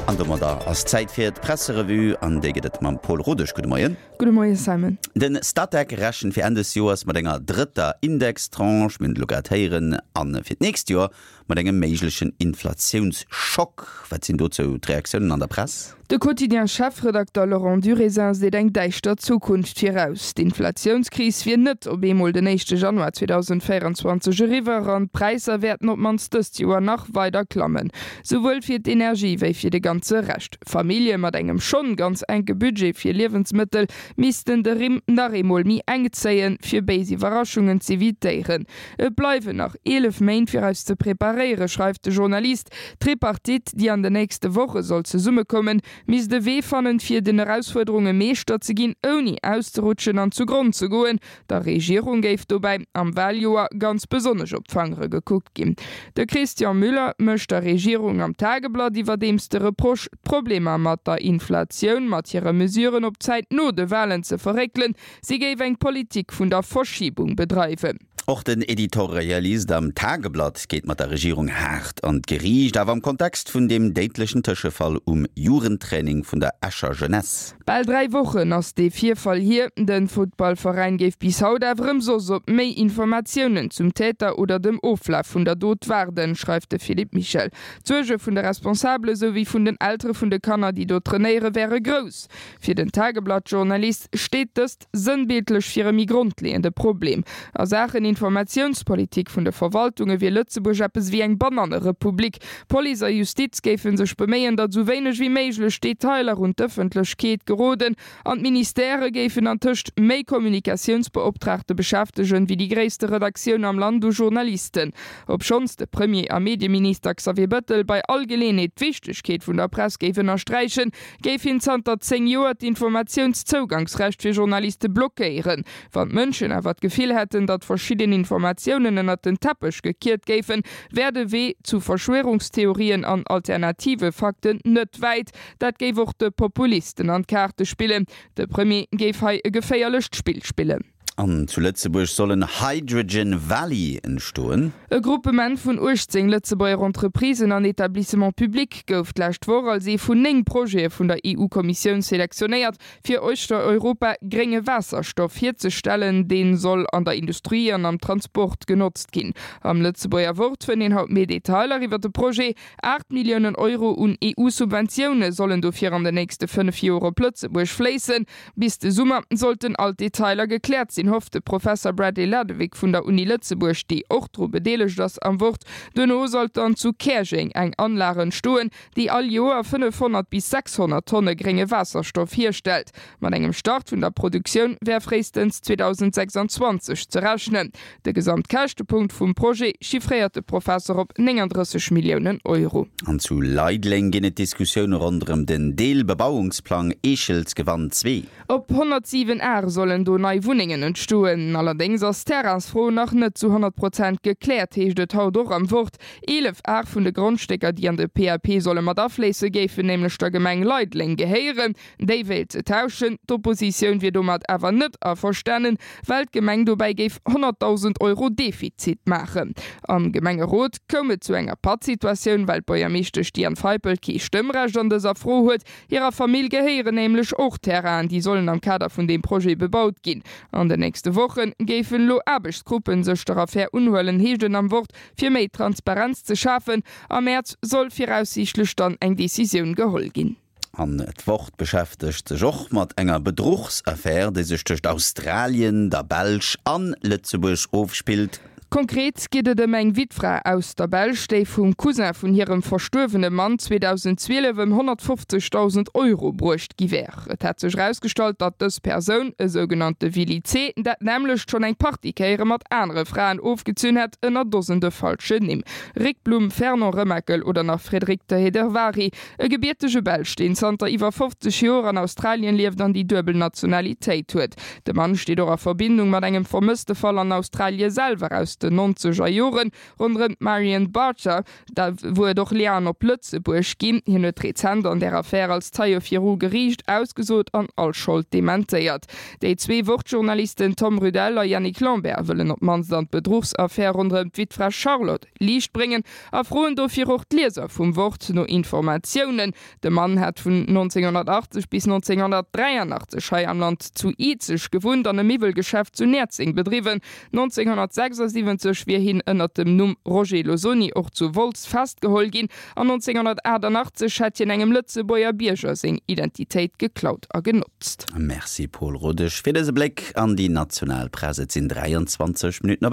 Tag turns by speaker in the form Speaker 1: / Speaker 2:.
Speaker 1: An domadder ass Zäit fir d'Presserevue an déi gëtt et mam Pol Rodesch. Gudde Moien.
Speaker 2: Gudde Moie Simon.
Speaker 1: De Statec rechent fir Enn des Joers mat enger drëtter Indextranche, mir hunn et elo grad héieren, a fir d'nächst Joer mat engem méiglechen Inflatiounsschock. Wat sinn dozou d'Reaktiounen an der Press?
Speaker 2: De Quotidien-Chefredakter Laurent Durézin seet eng däischter Zukunft viraus. D'Inflatiounskris wier net op eemol den éischte Januar 2024 eriwwer an d'Präisser wäerten op d'mannst dëst Joer nach weider klammen. Souwuel fir d'Energie wéi fir de ganze Rescht. Famillje mat engem schonn ganz enke Budget fir Liewensmëttel missten de Rimm nach eemol méi enk zéien, fir béis Iwwerraschungen z'evitéieren. Et bleiwen nach 11 Méint fir eis ze preparéieren, schreift de Journalist. D'Tripartite, déi an den nächste Woche soll zesummekommen, misst e Wee fannen, fir den Erausfuerderunge Meeschter ze ginn, ouni auszerutschen an zu Gronn ze goen. Der Regierung géif dobäi am Waljoer ganz besonnesch op d'Fangere gekuckt ginn. De Christian Müller mécht der Regierung am Tageblatt iwwerdeems de Reproche, d'Problemer mat der Inflatioun mat hire Mesuren op d'Zäit no de Walen ze verréckelen. Si géif eng Politik vun der Verschiebung bedreiwen.
Speaker 1: Och den Editorialist am Tageblatt geet mat der Regierung haart an d'Geriicht, awer am Kontext vun deem déidlechen Tëschefall um Jugendtraining vun der Escher Jeunesse.
Speaker 2: Bal 3 Wochen ass dee Virfall hier. De Futtballveräin géif bis haut awer ëmsoss op méi Informatiounen zum Täter oder dem Oflaf vun der Dot waarden, schreift de Philippe Michel. D'Suerge vun de Responsabele souwéi vun den Eltere vun de Kanner, déi do trainéiere, wäre grouss. Fir den Tageblatt-Journalist steet dëst sënnbildlech fir e méi grondleeënde Problem. A Saachen Informatiounspolitik vun de Verwaltunge wier Lëtzebuerg eppes ewéi eng Banannerepublik. Police a Justiz géife sech beméien, datt esou wéineg ewéi méiglech Detailer un d'Ëffentlechkeet geroden an d'Ministèrë géifen antëscht méi Kommunikatiounsbeoptraagte beschäftegen, wéi déi gréisste Redaktioun am Land u Journalisten. Obschonns de Premier a Medieminister Xavier Bëttel bei all Geleenheet d'Wichtegkeet vun der Press géif ënnersträichen, géif hien zanter 10 Joer d'Informatiounszougangsrecht fir Journaliste blockéieren. Wann d'Mënschen awer d'Gefill hätten, datt verschidden Informatiounen ënnert den Teppech gekiert géifen, wär de Wee zu Verschwörungstheorien an alternative Fakten net wäit. Dat géif och de Populisten an d'Kaarte spillen. De Premier géif hei e geféierlecht Spill spillen.
Speaker 1: An zu Lëtzebuerg soll en Hydrogen Valley entstoen.
Speaker 2: E Gruppement vun 18 Lëtzebuerger Entreprisen an Etablissements publics gouf d'lescht Woch als ee vun 9 Projete vun der EU-Kommissioun selektionéiert, fir uechter Europa grénge Waasserstoff hierzestellen. Dee soll an der Industrie an am Transport genotzt ginn. Am Lëtzebuerger Wort fënnt een haut méi Detailer iwwer de Projet. 8 Milliounen Euro un EU-Subventioune sollen dofir an den nächste 5 Joer op Lëtzebuerg fléissen. Bis de Summer sollten all d'Detailer gekläert sinn, hofft de Professer Bradley Ladewig vun der Uni Lëtzebuerg, déi och dru bedeelegt ass, am Wort. Duerno sollt dann zu Käerjeng eng Anlag entstoen, déi all Joer 500 bis 600 Tonne grénge Waasserstoff hierstellt. Mat engem Start vun der Produktioun wär fréistens 2026 ze rechnen. De Gesamtkäschtepunkt vum Projet chiffréiert de Professer op 39 Milliounen Euro.
Speaker 1: An zu Leideleng ginn et Diskussioune ronderëm den Deelbebauungsplang Eechelsgewann 2.
Speaker 2: Op 107 Ar sollen do nei Wunnengen entstoen. Allerdéngs ass d'Terrainsfro nach net zu 100 Prozent gekläert, heescht et haut och am Wort. 11 Ar vun de Grondstécker, déi an de PAP solle mat afléisse, géifen nämlech der Gemeng Leideleng gehéieren. Déi wéilt se tauschen. D'Oppositioun wier domat awer net averstanen, well d'Gemeng dobäi géif 100.000 Euro Defizit maachen. Am Gemengerot koum et zu enger Pattsituatioun, well d'Buergermeeschtesch Diane Feipel kee Stëmmrecht an dëser Fro huet. Hirer Famill gehéieren nämlech och Terrainen, déi sollen am Kader vun deem Projet bebaut ginn. An den nächste Woche géifen elo Aarbechtsgruppen sech der Affär unhuelen, heescht et am Wort, fir méi Transparenz ze schafen. Am Mäerz soll viraussiichtlech dann eng Decisioun geholl ginn.
Speaker 1: An d'Wort beschäftegt sech och mat enger Bedruchsaffär, déi sech tëscht Australien, der Belsch an Lëtzebuerg ofspillt.
Speaker 2: Konkret geet et ëm eng Wittfra aus der Belsch, déi vum Cousin vun hirem verstuerwene Mann 2012 ëm 150.000 Euro bruecht gi wär. Et hätt sech erausgestallt, datt dës Persoun, e sougenannte Willy C., dat nämmlecht schonn eng Partie Kéiere mat anere Fraen ofgezunn hätt, ënner Dosende falschen Nimm, Rick Blum, Fernand Remakel oder nach Frédéric de Héderváry. E gebiertege Belsch, deen zanter iwwer 50 Joer an Australien lieft an déi duebel Nationalitéit huet. De Mann steet och a Verbindung mat engem Vermësstefall an Australie selwer aus. aus den nonzeger Joren ronderëm d'Marion Barter, Da wou et och Liaen op Lëtzebuerg ginn. Hien huet rezent an där Affär als Zeie viru Geriicht ausgesot an all Schold dementéiert. Déi zwee Wort-Journalisten Tom Rudel a Yannick Lambert wëllen op d'mannst an d'Bedruchsaffär ronderëm d'Wittfra Charlotte Liicht bréngen a froen dofir och d'Lieser vum Wort no Informatiounen. De Mann hat vun 1980 bis 1983 hei am Land zu Izeg gewunnt an e Miwwelgeschäft zu Näerzeng bedriwwen. 1976 wier hien ënnert dem Numm Roger Losoni och zu Wolz festgeholl ginn an 1988 hätt hien engem Lëtzebuerger Bierger seng Identitéit geklaut a genotzt.
Speaker 1: Merci Paul Rodesch fir dëse Bléck an déi national Press. Et sinn 23 Minutten op.